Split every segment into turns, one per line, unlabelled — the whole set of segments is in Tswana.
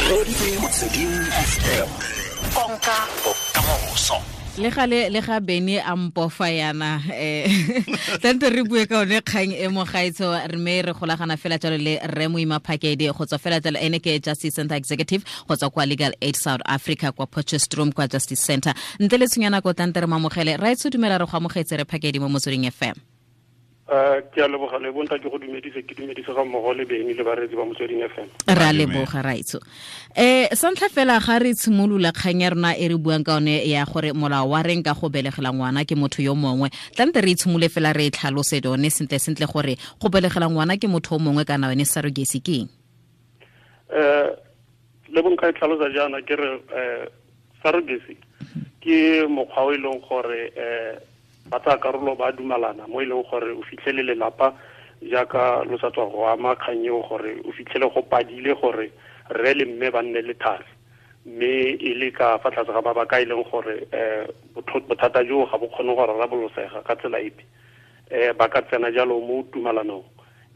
Reditse Motsweding FM. Konka bokamoso.
Le gale le ga Bene a mpofa yana, tante re bue ka one kgang e mo gaetsho, re me re golagana fela jalo le Rre Moima Phakedi go tswa fela jalo, ene ke Justice Center Executive go tswa kwa Legal Aid South Africa kwa Potchefstroom kwa Justice Center. Ntle le tshunya nako, tante re mamogele. Raetsho, dumela, re go amogetse re Phakedi mo Motsweding FM.
Ke a leboga le bonta, ke go dumedise, ke dumedise ga mmogo le Beny le bareetsi ba Motsweding FM.
Re a leboga, raitso. Sa ntlha fela, ga re tshimolola kgang ya rona e re buang ka one ya gore molao wa reng ka go belegela ngwana ke motho yo mongwe, tlante re itshimole fela re e tlhalose yone sentle sentle gore go belegela ngwana ke motho o mongwe kana yone surrogacy ke eng?
Le bonka e tlhalosa jaana, ke re surrogacy ke mokgwa o e leng gore ba tsaya karolo ba dumalana mo e leng gore o fitlhele lelapa, jaaka lo sa tswa go ama kgang eo, gore o fitlhele go padile gore rre le mme ba nne le thari, mme e le ka fa tlase ga mabaka e leng gore bothata joo ga bo kgone go rarabolosega ka tsela epe, ba ka tsena jalo mo tumalanong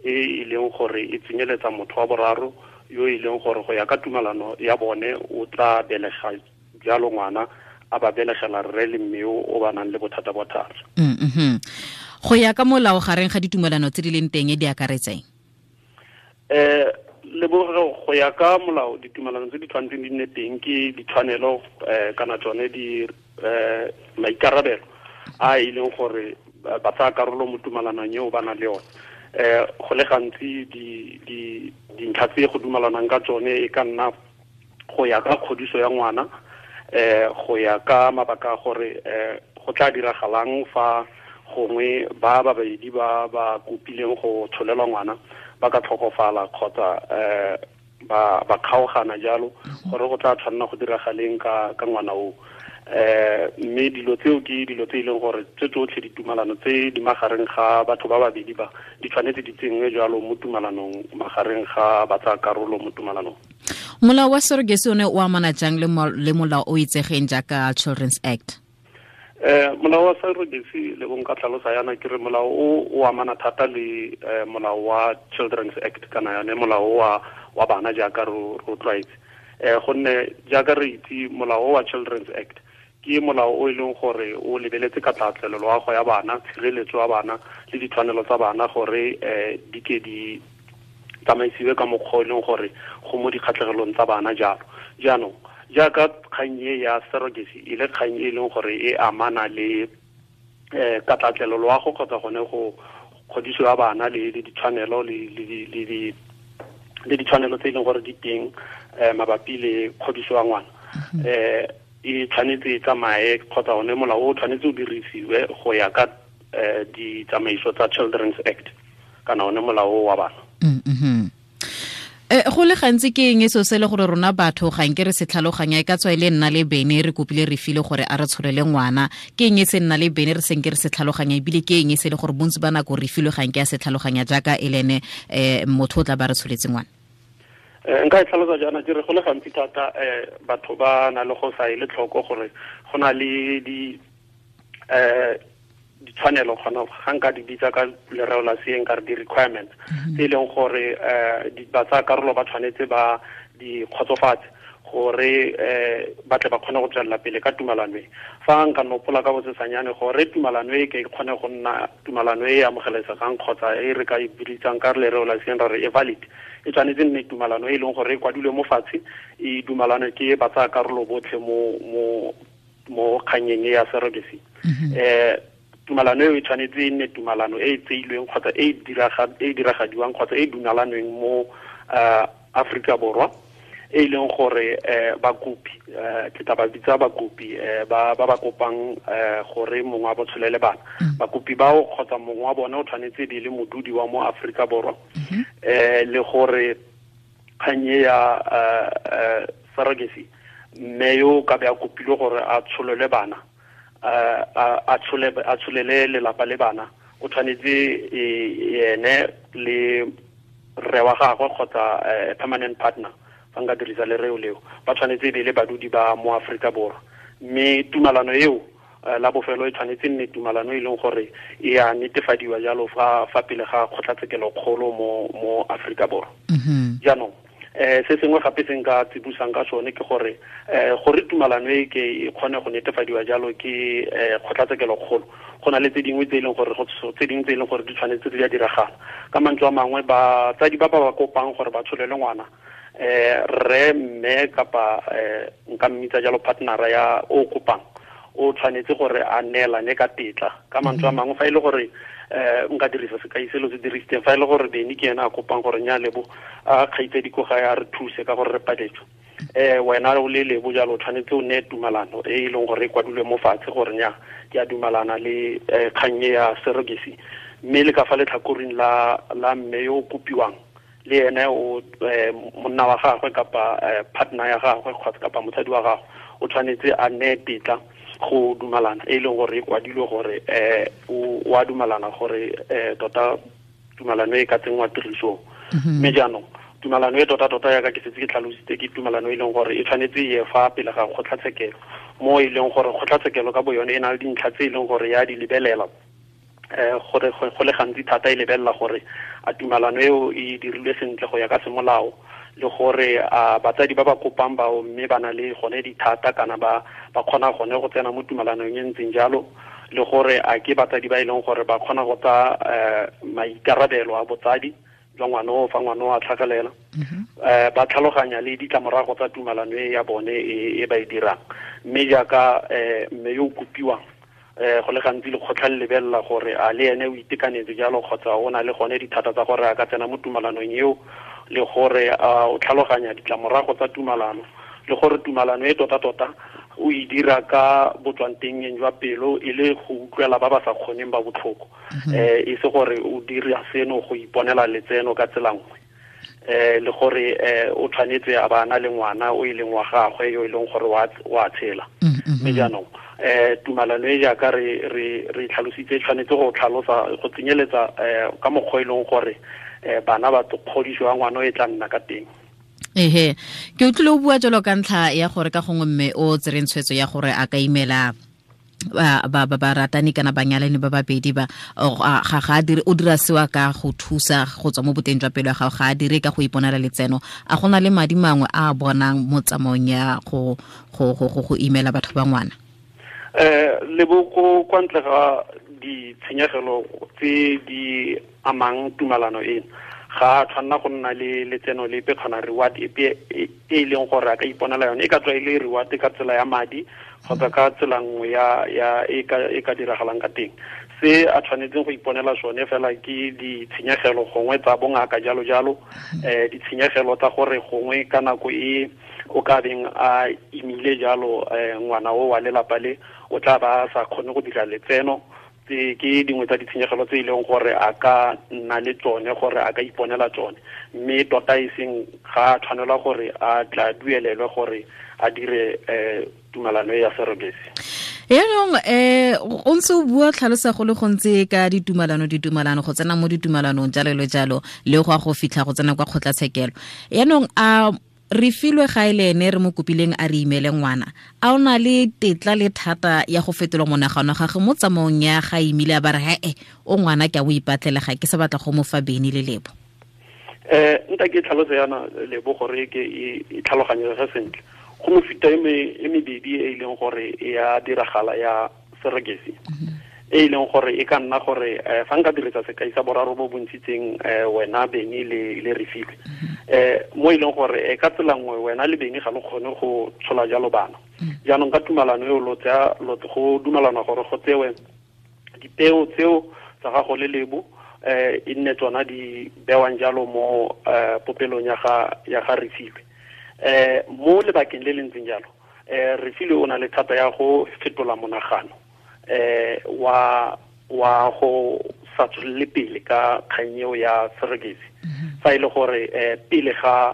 e e leng gore e tsenyeletsa motho wa boraro yo e leng gore go ya ka tumalano ya bone o tla belega jalo ngwana, a ba belegela rre le mme o ba nang le bothata ba thari.
Go ya ka molao, gareng ga ditumelano tse di leng teng di akaretseng?
Leboge, go ya ka molao, ditumelano tse di tshwanetseng di nne teng ke ditshwanelo kana tsone di maikarabelo a e leng gore ba tsaya karolo mo tumalanong eo ba nang le yone. Go le gantsi dintlha tse go dumalanang ka tsone e ka nna go ya ka kgodiso ya ngwana, go ya ka mabaka a gore go tla diragalang fa gongwe ba babedi ba ba kopileng go tsholelwa ngwana ba ka tlhokofala kgotsa ba kgaogana jalo, gore go tla tshwanela go diragaleng ka ngwana o. Mme dilo tseo ke dilo tse e leng gore tse tsotlhe ditumalano tse di magareng ga batho ba babedi ba di tshwanetse di tsenngwe jalo mo tumalanong magareng ga ba tsaya karolo mo tumalanong.
Molao wa surrogacy one o amana jang le molao o itsegeng jaaka Children's Act?
Molao wa surrogacy, le bong ka tlhalosa yana, ke re molao o amana thata le molao wa Children's Act kana yone molao wa bana jaaka ro tlwaetse, gonne jaaka re itse, molao wa Children's Act ke molao o e leng gore o lebeletse ka tlatlelo loago ya bana, tshireletso ya bana le ditshwanelo tsa bana gore di ke di tsamaisiwe ka mokgwa o e leng gore go mo dikgatlhegelong tsa bana jalo. Jaanong jaaka kgang e ya surrogacy e le kgang e leng gore e amana le katlatlelo loago kgotsa gone go kgodiso ya bana le ditshwanelo le ditshwanelo tse e leng gore di teng mabapi le kgodiso ya ngwana, e tshwanetse e tsamaye kgotsa one molao o tshwanetse o dirisiwe go ya ka ditsamaiso tsa Children's Act kana one molao wa bana.
Go le gantsi ke eng e seo se le gore rona batho ga nke re se tlhaloganya, e ka tswa e le nna le Bene re kopile re file gore a re tsholele ngwana, ke eng e se nna le Bene re senke re se tlhaloganya, ebile ke eng e se le gore bontsi ba nako re filwe ga nke a se tlhaloganya jaaka e le ene motho o tla ba re tsholetse ngwana?
Nka e tlhalosa jaana, ke re go le gantsi thata batho ba na le go sa ele tlhoko gore go na le ditshwanelo, kgona ga nka di bitsa ka lereo la seeng ka re di-requirements tse e leng gore ba tsaya karolo ba tshwanetse ba di kgotsofatse gore ba tle ba kgone go tswelela pele ka tumalano e. Fa nka nopola ka bosesanyane, gore tumalano e ke kgone go nna tumalano e e amogelesegang kgotsa e re ka e biditsang ka lereo la seeng ra re e valid, e tshwanetse nne tumalano e leng gore e kwadilwe mo fatshe, e dumalane ke ba tsaya karolo botlhe mo kganyeng e ya surrogacy. Tumalano eo e tshwanetse e nne tumalano e e tseilweng kgotsa e e diragadiwang kgotsa e dumalanweng mo Afrika Borwa, e leng gore bakopi, ke tla ba bitsa bakopi ba kopang gore mongwe wa bo tsholele bana, bakopi bao kgotsa mongwe wa bone o tshwanetse be le modudi wa mo Afrika Borwa, le gore kgang e ya surrogacy, mme yo ka be a kopilwe gore a tsholele bana, a tsholele lelapa le bana, o tshwanetse ene le rre wa gagwe kgotsa permanent partner, fa nka dirisa lereo leo, ba tshwanetse e be le badudi ba mo Afrika Borwa. Mme tumalano eo la bofelo e tshwanetse nne tumalano e leng gore e a netefadiwa jalo fa pele ga kgotlatshekelo kgolo mo Afrika Borwa. Jaanong Se sengwe gape se nka tsibusang ka sone ke gore gore tumalano e ke e kgone go netefadiwa jalo ke kgotlatshekelo kgolo, go na le tse dingwe tse e leng gore tse dingwe tse e leng gore di tshwanetse di a diragala. Ka mantswe a mangwe, batsadi ba ba kopang gore ba tsholele ngwana, rre, mme kapa nka mmitsa jalo partnera ya o kopang, o tshwanetse gore a neelane ka tetla. Ka mantswe a mangwe, fa e le gore nka dirisa sekai selo se dirisitseng, fa e le gore Beny ke ena a kopang gore nya Lebo a kgaitsedi ko gae a re thuse ka gore re paletswe, wena o le Lebo jalo o tshwanetse o neye tumalano e e leng gore e kwadilwe mo fatshe gore nya ke a dumalana le kgang e ya surrogacy. Mme le ka fa letlhakoreng la mme yo o kopiwang, le ene o monna wa gagwe kapa partner ya gagwe kgotsa kapa mosadi wa gagwe, o tshwanetse a neye tetla go dumalana e leng gore e kwadilwe gore o a dumalana gore tota tumalano e ka tsenngwa tirisong. Mme jaanong tumalano e tota-tota yaka ke setse ke tlhalositse, ke tumalano e leng gore e tshwanetse e ye fa pele ga kgotlatshekelo, mo e leng gore kgotlatshekelo ka bo yone e na le dintlha tse e leng gore ya di lebelela, gore go le gantsi thata e lebelela gore a tumalano eo e dirilwe sentle go ya ka semolao, le gore a batsadi ba ba kopang bao mme ba na le gone dithata kana ba kgona gone go tsena mo tumalanong e ntseng jalo, le gore a ke batsadi ba e leng gore ba kgona go tsaya maikarabelo a botsadi jwa ngwana o fa ngwana o a tlhagelela, ba tlhaloganya le ditlamorago tsa tumalano e ya bone e ba e dirang. Mme jaaka mme yo o kopiwang, go le gantsi lekgotla le lebelela gore a le ene o itekanetse jalo kgotsa o na le gone dithata tsa gore a ka tsena mo tumalanong eo, le gore o tlhaloganya ditlamorago tsa tumalano, le gore tumalano e tota-tota o e dira ka botswantengeng jwa pelo e le go utlwela ba ba sa kgoneng ba botlhoko, e se gore o dira seno go iponela letseno ka tsela nngwe, le gore o tshwanetse a ba na le ngwana o e leng wa gagwe yo e leng gore wa tshela. Mme jaanong tumalano e jaaka re tlhalositse tshwanetse go tlhalosa go tsenyeletsa ka mokgwa e leng gore bana ba kgodiso ya ngwana e tla nna ka teng.
Ehe, ke utlwile o bua jalo ka ntlha ya gore ka gongwe mme o tsereng tshwetso ya gore a ka imela ba ratani kana banyalani ba babedi ba ga dire o dira sewa ka go thusa go tswa mo boteng jwa pelo ya gago, ga a dire ka go iponela letseno. A gona le madi mangwe a bonang mo tsamaong ya go imela batho ba ngwana?
Leboko kwa ntle ga ditshenyegelo tse di amang tumalano eno, ga a tshwanna go nna le letseno lepe kgona reward epe e leng gore a ka iponela yone, e ka tswa e le reward ka tsela ya madi kgotsa ka tsela nngwe ya e ka diragalang ka teng. Se a tshwanetseng go iponela sone fela ke ditshenyegelo gongwe tsa bongaka jalo jalo, ditshenyegelo tsa gore gongwe ka nako e o ka beng a imile jalo ngwana o wa lelapa le o tla ba sa kgone go dira letseno. Ke dingwe tsa ditshenyegelo tse e leng gore a ka nna le tsone gore a ka iponela tsone, mme tota e seng ga a tshwanelwa gore a tla duelelwe gore a dire tumalano ya surrogacy.
Yaanong o ntse o bua tlhalosa go le gontsi ka ditumalano go tsena mo ditumalanong jalo le jalo le go a go fitlha go tsena kwa kgotlatshekelo. Yaanong a re filwe ga ile ene re mo kopileng a re imele ngwana, a ona le tetla le thata ya go fetola monagano gagwe mo tsamaong ya ga imile a ba re he o ngwana ke a o ipatlela ga ke sa batla go mo fa Beny le Lebo?
Nta ke tlhaloso yana Lebo gore ke e tlhaloganyege sentle. Go mefuta e mebedi e leng gore e ya diragala ya surrogacy, e leng gore e ka nna gore fa nka dirisa sekai sa boraro bo bontshitseng wena Beny le Refilwe, mo e leng gore ka tsela nngwe wena le Beny ga lo kgone go tshola jalo bana. Jaanong ka tumalano eo lo tsaya go dumalana gore go tsewe dipeo tseo tsa gago le Lebo, e nne tsona di bewang jalo mo popelong ya ga Refilwe. Mo lebakeng le le ntseng jalo, Refilwe o na le thata ya go fetola monagano wa go sa tswelele pele ka kgang eo ya surrogacy. Fa e le gore pele ga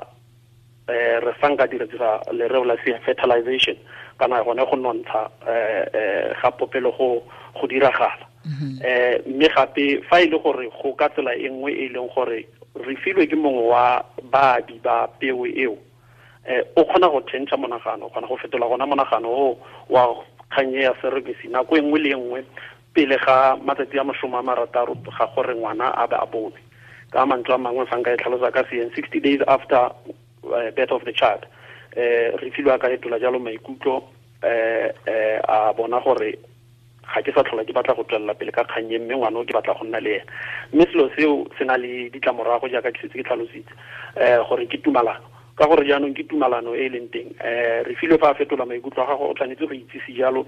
re sanka dirisa lereo la fertilization kana gone go nontsha ga popelo go diragala. Mme gape fa e le gore go ka tsela e nngwe e leng gore Refilwe ke mongwe wa baabi ba peo eo, o kgona go change monagano, o kgona go fetola gona monagano o wa kgang ya surrogacy nako e nngwe le nngwe pele ga matsatsi a 60 ga gore ngwana a be a bone. Ka mantswe a mangwe fa nka e tlhalosa ka seeng, 60 days after birth of the child. Re filwe ka fetola jalo maikutlo, a bona gore ga ke sa tlhola ke batla go tswelela pele ka kgang e, mme ngwana o ke batla go nna le ena. Mme selo seo se na le ditlamorago jaaka ke setse ke tlhalositse, gore ke tumalano, ka gore jaanong ke tumalano e e leng teng. Re filwe fa a fetola maikutlo a gago, o tshwanetse go itsise jalo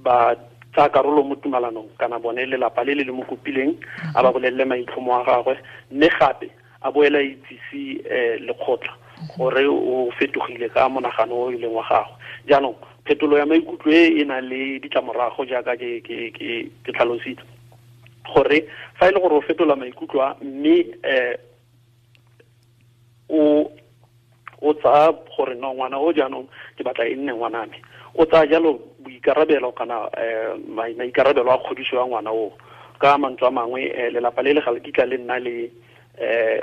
ba tsaya karolo mo tumalanong kana bone lelapa le le le mo kopileng, a ba bolelele maitlhomo a gagwe, mme gape a boela itsise lekgotla gore o fetogile ka monagano o e leng wa gagwe. Jaanong phetolo ya maikutlo e e na le ditlamorago jaaka ke tlhalositse, gore fa e le gore o fetola maikutlo a, mme o tsaya gore no ngwana o jaanong ke batla e nne ngwana me, o tsaya jalo boikarabelo kana maikarabelo a kgodiso ya ngwana o. Ka mantswe a mangwe, lelapa le le ga le kitla le nna le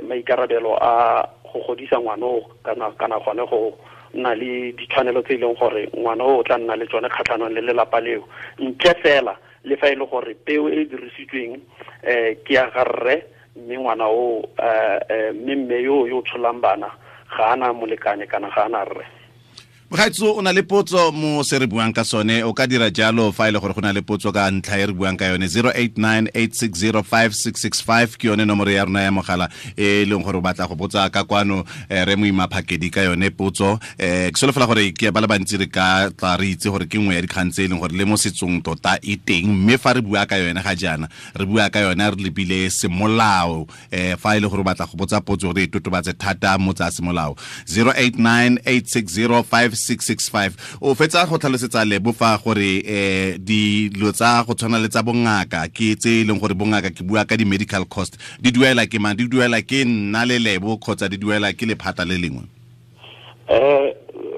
maikarabelo a go godisa ngwana o, kana gone go nna le ditshwanelo tse e leng gore ngwana o tla nna le tsone kgatlhanong le lelapa leo, ntle fela le fa e le gore peo e dirisitsweng ke ya garre, mme ngwana o mme mme yo tsholang bana ga ana molekane kana ga ana rre.
Mogaetso, o na le potso mo se re buang ka sone, o ka dira jalo fa e le gore go na le potso ka ntlha e re buang ka yone. 0898605665 ke yone nomoro ya rona ya mogala e leng gore o batla go botsa ka kwano re Moima Phakedi ka yone potso. Ke solofela gore ke ba le bantsi re ka tla re itse gore ke nngwe ya dikgang tse e leng gore le mo setsong tota e teng, mme fa re bua ka yone ga jaana re bua ka yone re lebile semolao. Fa e le gore o batla go botsa potso gore e totobatse thata mo tsa semolao, 0898605665. O fetsa go tlhalosetsa Lebo fa gore dilo tsa go tshwana le tsa bongaka ke tse e leng gore bongaka, ke bua ka di-medical cost, di duela ke mang? Di duela ke nna le Lebo kgotsa di duela ke lephata le lengwe?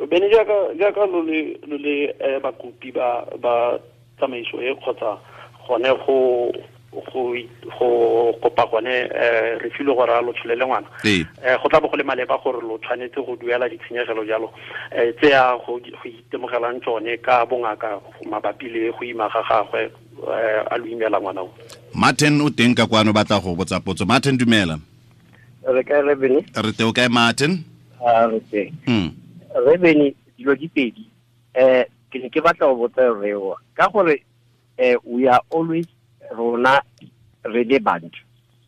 Bene jaaka lo le bakopi ba tsamaiso e kgotsa gone go kopa gone re filwe gore a lo tsholele ngwana, go tla bo go le maleba gore lo tshwanetse go duela ditshenyegelo jalo tse ya go itemogelang tsone ka bongaka mabapi le go ima ga gagwe a lo imela ngwana o.
Martin o teng ka kwano, batla go botsa potso. Martin, dumela.
Re kae, Rebene?
Re teng. O kae, Martin?
Re teng. Rebene, dilo di pedi. Ke ne ke batla go botsa reo ka gore we are always rona re le bantu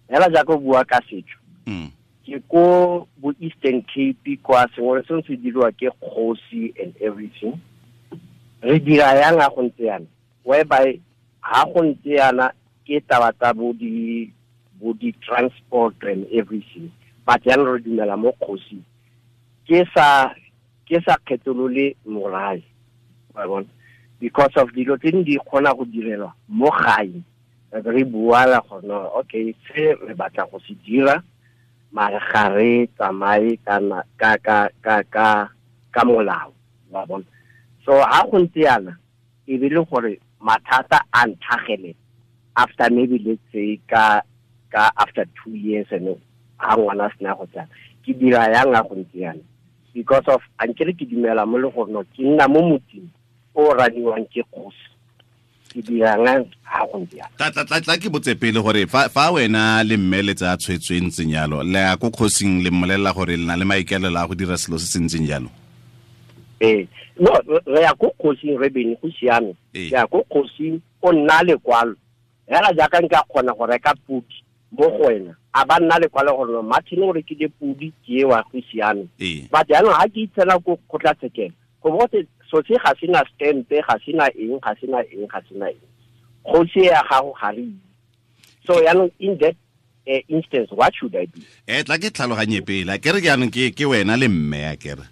hela jaaka o bua ka setso, ke ko bo Eastern Cape kwa sengwe le sengwe se diriwa ke kgosi and everything. Re dira yang ga go ntse yana, whereby ha go ntse yana ke taba tsa bo di transport and everything, but jaanong re dumela mo kgosi, ke sa kgetholole morae, wa bona, because of dilo tse di kgona go direlwa mo gae. Re buala gore no, okay, se re batla go se dira, mare ga re tsamaye ka molao, wa bona. So ha go ntse yana, e be le gore mathata a ntlhagele after maybe let's say ka after 2 years and ha ngwana sena go tsaya, ke dira yang ga go ntse yana, because of ankere ke dumela mo le gore no ke nna mo motseng o raniwang ke kgosi, ke dirang ha go ntse yana.
Tla ke botse pele gore fa wena le mme le tsa tshwetso e ntseng jalo, le ya ko kgosing le mmolelela gore le na le maikaelelo a go dira selo se se ntseng jalo?
No, re ya ko kgosing, re bene go siame. Re ya ko kgosing, o nna lekwalo hela jaaka nka kgona go reka podi mo go wena, a ba nna lekwalo gore Martin o rekile podi ke ewa, go siame. But jaanong ha ke itshela ko kgotlatshekelo, go bo gote so se ga sena stempe, ga sena eng, ga sena eng, ga sena eng, kgosi ya gago ga re itse. So jaanong in that instance, what should I do?
Tla ke tlhaloganye pele, ke re jaanong ke wena le mme ya kere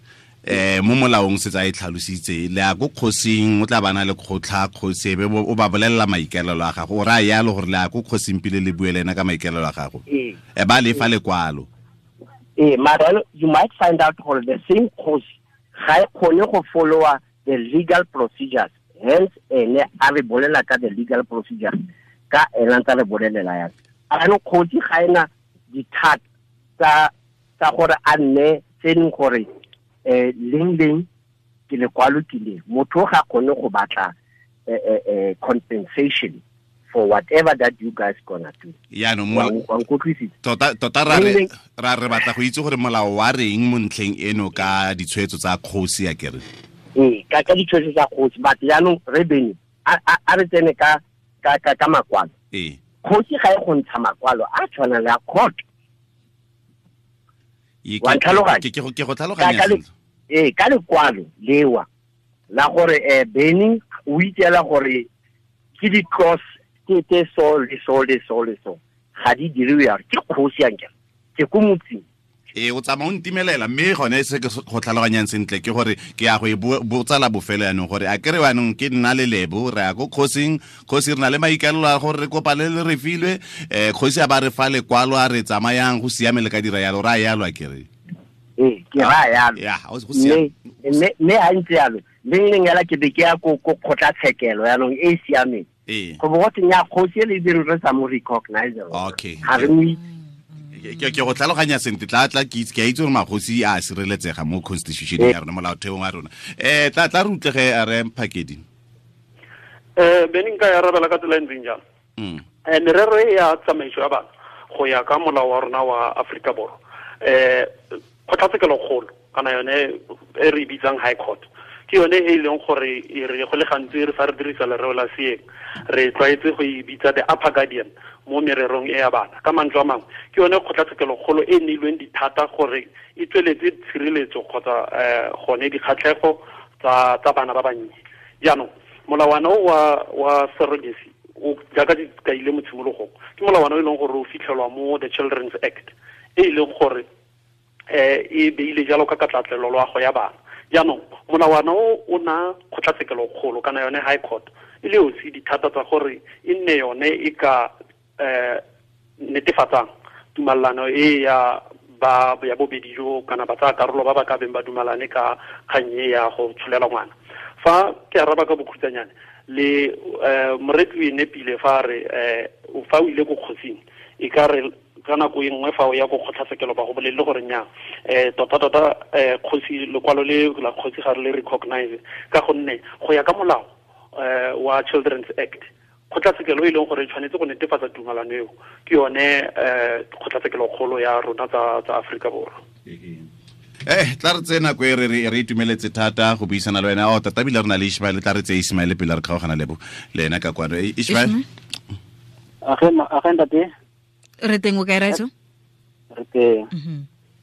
mo molaong se tsa e tlhalositse, le ya ko kgosing, o tla bana le kgotlha kgosi, ebe o ba bolelela maikaelelo a gago, o raya yalo gore le ya ko kgosing pele le bue le ena ka maikaelelo a gago, ba lefa lekwalo.
Mara you might find out gore the same kgosi ga e kgone go followa the legal procedures, hence ene a re bolela ka the legal procedures ka ena ntse re bolelela yana. Jaanong kgosi ga ena dithata tsa gore a nne tse leng gore leng ke lekwalo ke le, motho ga kgone go batla compensation for whatever that you guys gonna do.
Yaanong tota ra re batla go itse gore molao wa reng mo ntlheng eno ka ditshwetso tsa kgosi ya kere.
Ee, ka ditshwetso tsa kgosi, but jaanong re bene a re tsene ka makwalo.
Ee.
Kgosi ga e go ntsha makwalo a tshwana le a court. Wa ntlhaloganya?
Ke go tlhaloganya sentle.
Ee, ka lekwalo lewa la gore Benny o itseela gore ke di-clause ke so le so le so le so ga di diriwe yalo, ke kgosi ankere, ke ko motseng.
Ee, o tsamaya o ntimelela, mme gone se ke go tlhaloganyang sentle ke gore ke ya go e botsa la bofelo yanong gore a kere yanong ke nna le Lebo re ya ko kgosing, kgosi re na le maikaelelo a gore re kopane le re filwe, kgosi a ba re fa lekwalo a re tsamayang go siame le ka dira yalo, ra yalo a kere.
Ee, ke ra yalo.
Ya, go siame.
Mme ha ntse yalo, leng leng yala ke be ke ya ko kgotlatshekelo yanong e e siameng.
Ee.
Go bo go tsenya kgosi e le dire re sa mo recognize.
Okay.
Ga re mo itse.
Ke go tlhaloganya sentle, tla ke itse, ke a itse gore magosi a sireletsega mo constitution ya rona, molaotheong wa rona. Tla re utlege a re Phakedi.
Bene nka ya arabela ka tsela e ntseng jalo. Merero e ya tsamaiso ya bana go ya ka molao wa rona wa Aforika Borwa, kgotlatshekelo kgolo kana yone e re bitsang High Court, ke yone e leng gore e re go le gantsi re fa re dirisa lereo la seeng re tlwaetse go e bitsa the upper guardian mo mererong e ya bana. Ka mantswe a mangwe, ke yone kgotlatshekelo kgolo e neilweng dithata gore e tsweletse tshireletso kgotsa gone dikgatlhego tsa bana ba bannye. Jaanong molawana o wa surrogacy o jaaka di kaile mo tshimologong, ke molawana o e leng gore o fitlhelwa mo the Children's Act e leng gore e beile jalo ka katlatlelo loago ya bana. Jaanong molawana o na kgotlatshekelo kgolo kana yone High Court e le yosi dithata tsa gore e nne yone e ka netefatsang tumalano e ya ba ya bobedi jo kana ba tsaya karolo ba ba ka beng ba dumalane ka kgang e ya go tsholela ngwana. Fa ke araba ka bokhutshwanyane le moretsi o e nepile fa re fa o ile ko kgosing e ka re ka nako e nngwe fa o ya ko kgotlatshekelo ba go bolelele gore nnyaa, tota kgosi lekwalo le la kgosi ga re le recognize ka gonne go ya ka molao wa Children's Act, kgotlatshekelo e leng gore e tshwanetse go netefatsa tumalano eo ke yone kgotlatshekelo kgolo ya rona tsa Aforika Borwa.
Tla re tsena nako e re itumeletse thata go buisana le wena. Tota ebile re na le Ishmael, tla re tseye Ishmael pele re kgaogana le ena ka kwano. Ishmael.
Age ntate.
Re teng o kae raitso?
Re teng.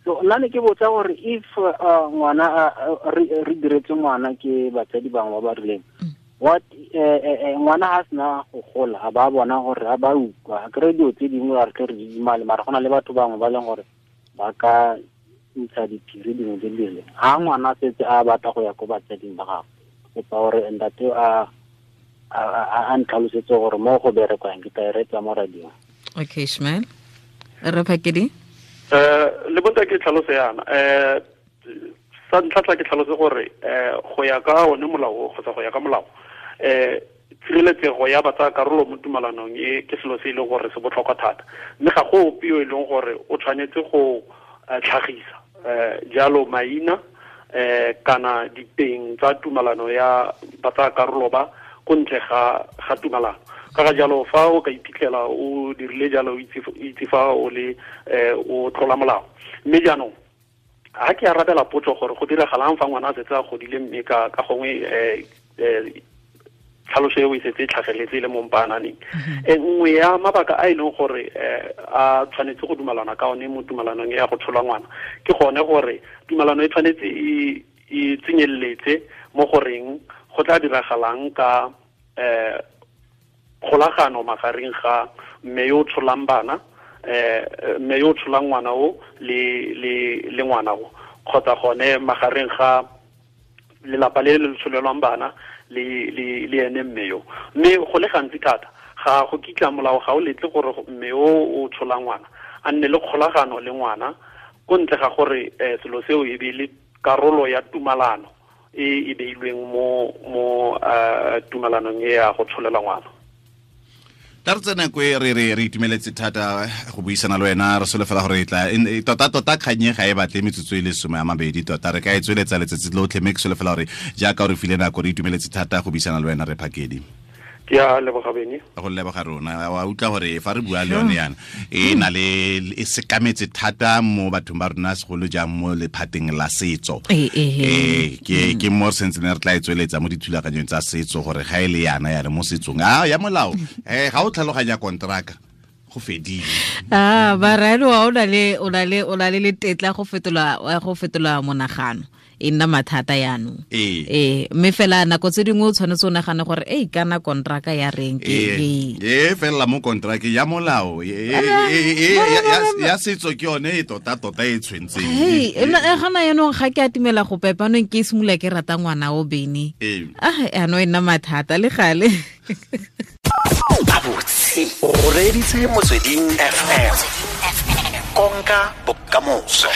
So nna ne ke botsa gore if ngwana re diretse ngwana ke batsadi bangwe ba ba rileng, what ngwana ha sena go gola a ba bona gore a ba utlwa, a kry dilo tse dingwe a re tle re didimale, mara go na le batho bangwe ba leng gore ba ka ntsha diphiri dingwe tse di rileng. Ha ngwana a setse a batla go ya ko batsading ba gagwe, kopa gore ntate a ntlhalosetse gore mo go berekwang, ke tla e reetsa mo radiong.
Okay, Ishmael. Re Phakedi?
Le bonta ke tlhalose yana. Sa ntlha tla ke tlhalose gore go ya ka one molao kgotsa go ya ka molao, tshireletsego ya batsa karolo mo tumalanong e ke selo se e leng gore se botlhokwa thata, mme ga go ope yo e leng gore o tshwanetse go tlhagisa jalo maina kana diteng tsa tumalano ya batsa karolo ba ko ntle ga tumalano. Ka ga jalo fa o ka iphitlhela o dirile jalo o itse fa o le o tlola molao. Mme jaanong ha ke arabela potso gore go diragalang fa ngwana a setse a godile mme ka gongwe tlhaloso eo e setse e tlhageletse le mo mpaananeng, nngwe ya mabaka a e leng gore a tshwanetse go dumalana ka one mo tumalanong ya go tshola ngwana ke gone gore tumalano e tshwanetse e tsenyeletse mo goreng go tla diragalang ka kgolagano magareng ga mme yo o tsholang bana, mme yo o tsholang ngwana o le ngwana o, kgotsa gone magareng ga lelapa le le tsholelwang bana le ene mme yo. Mme go le gantsi thata ga go kitla molao ga o letle gore mme o o tsholang ngwana a nne le kgolagano le ngwana ko ntle ga gore selo seo e be le karolo ya tumalano e e beilweng mo tumalanong e ya go tsholela ngwana.
Tla re tsena ko e re itumeletse thata go buisana le wena, re solofela gore e tla tota kganye ga e batle metsotso e le 20 tota re ka e tsweletsa letsatsi lotlhe, mme ke solofela gore jaaka o re file nako re itumeletse thata go buisana le wena re Phakedi.
Ke a leboga Bene.
Go leboga rona. Wa utlwa gore fa re bua le yone yana e na le e sekametse thata mo bathong ba rona, segolo jang mo lephateng la setso. Ke ke mo re sentse ne re tla e tsweletsa mo dithulaganyong tsa setso gore ga e le yana ya re mo setsong a ya molao ga o tlhaloganya kontraka go fedile.
Ba raelo o na le o na le o na le le tetla go fetola monagano, e nna mathata yaanong. Mme fela nako tse dingwe o tshwanetse o nagane gore ei kana kontraka ya reng ke
e fela mo kontraka ya molao ya setso ke yone e tota tota e tshwentseng.
Gana yanong ga ke atimela go pepanong ke simolola ke rata ngwana o Bene. Ano e nna mathata le gale.
Gabotse o reditse Motsweding FM, konka bokamoso.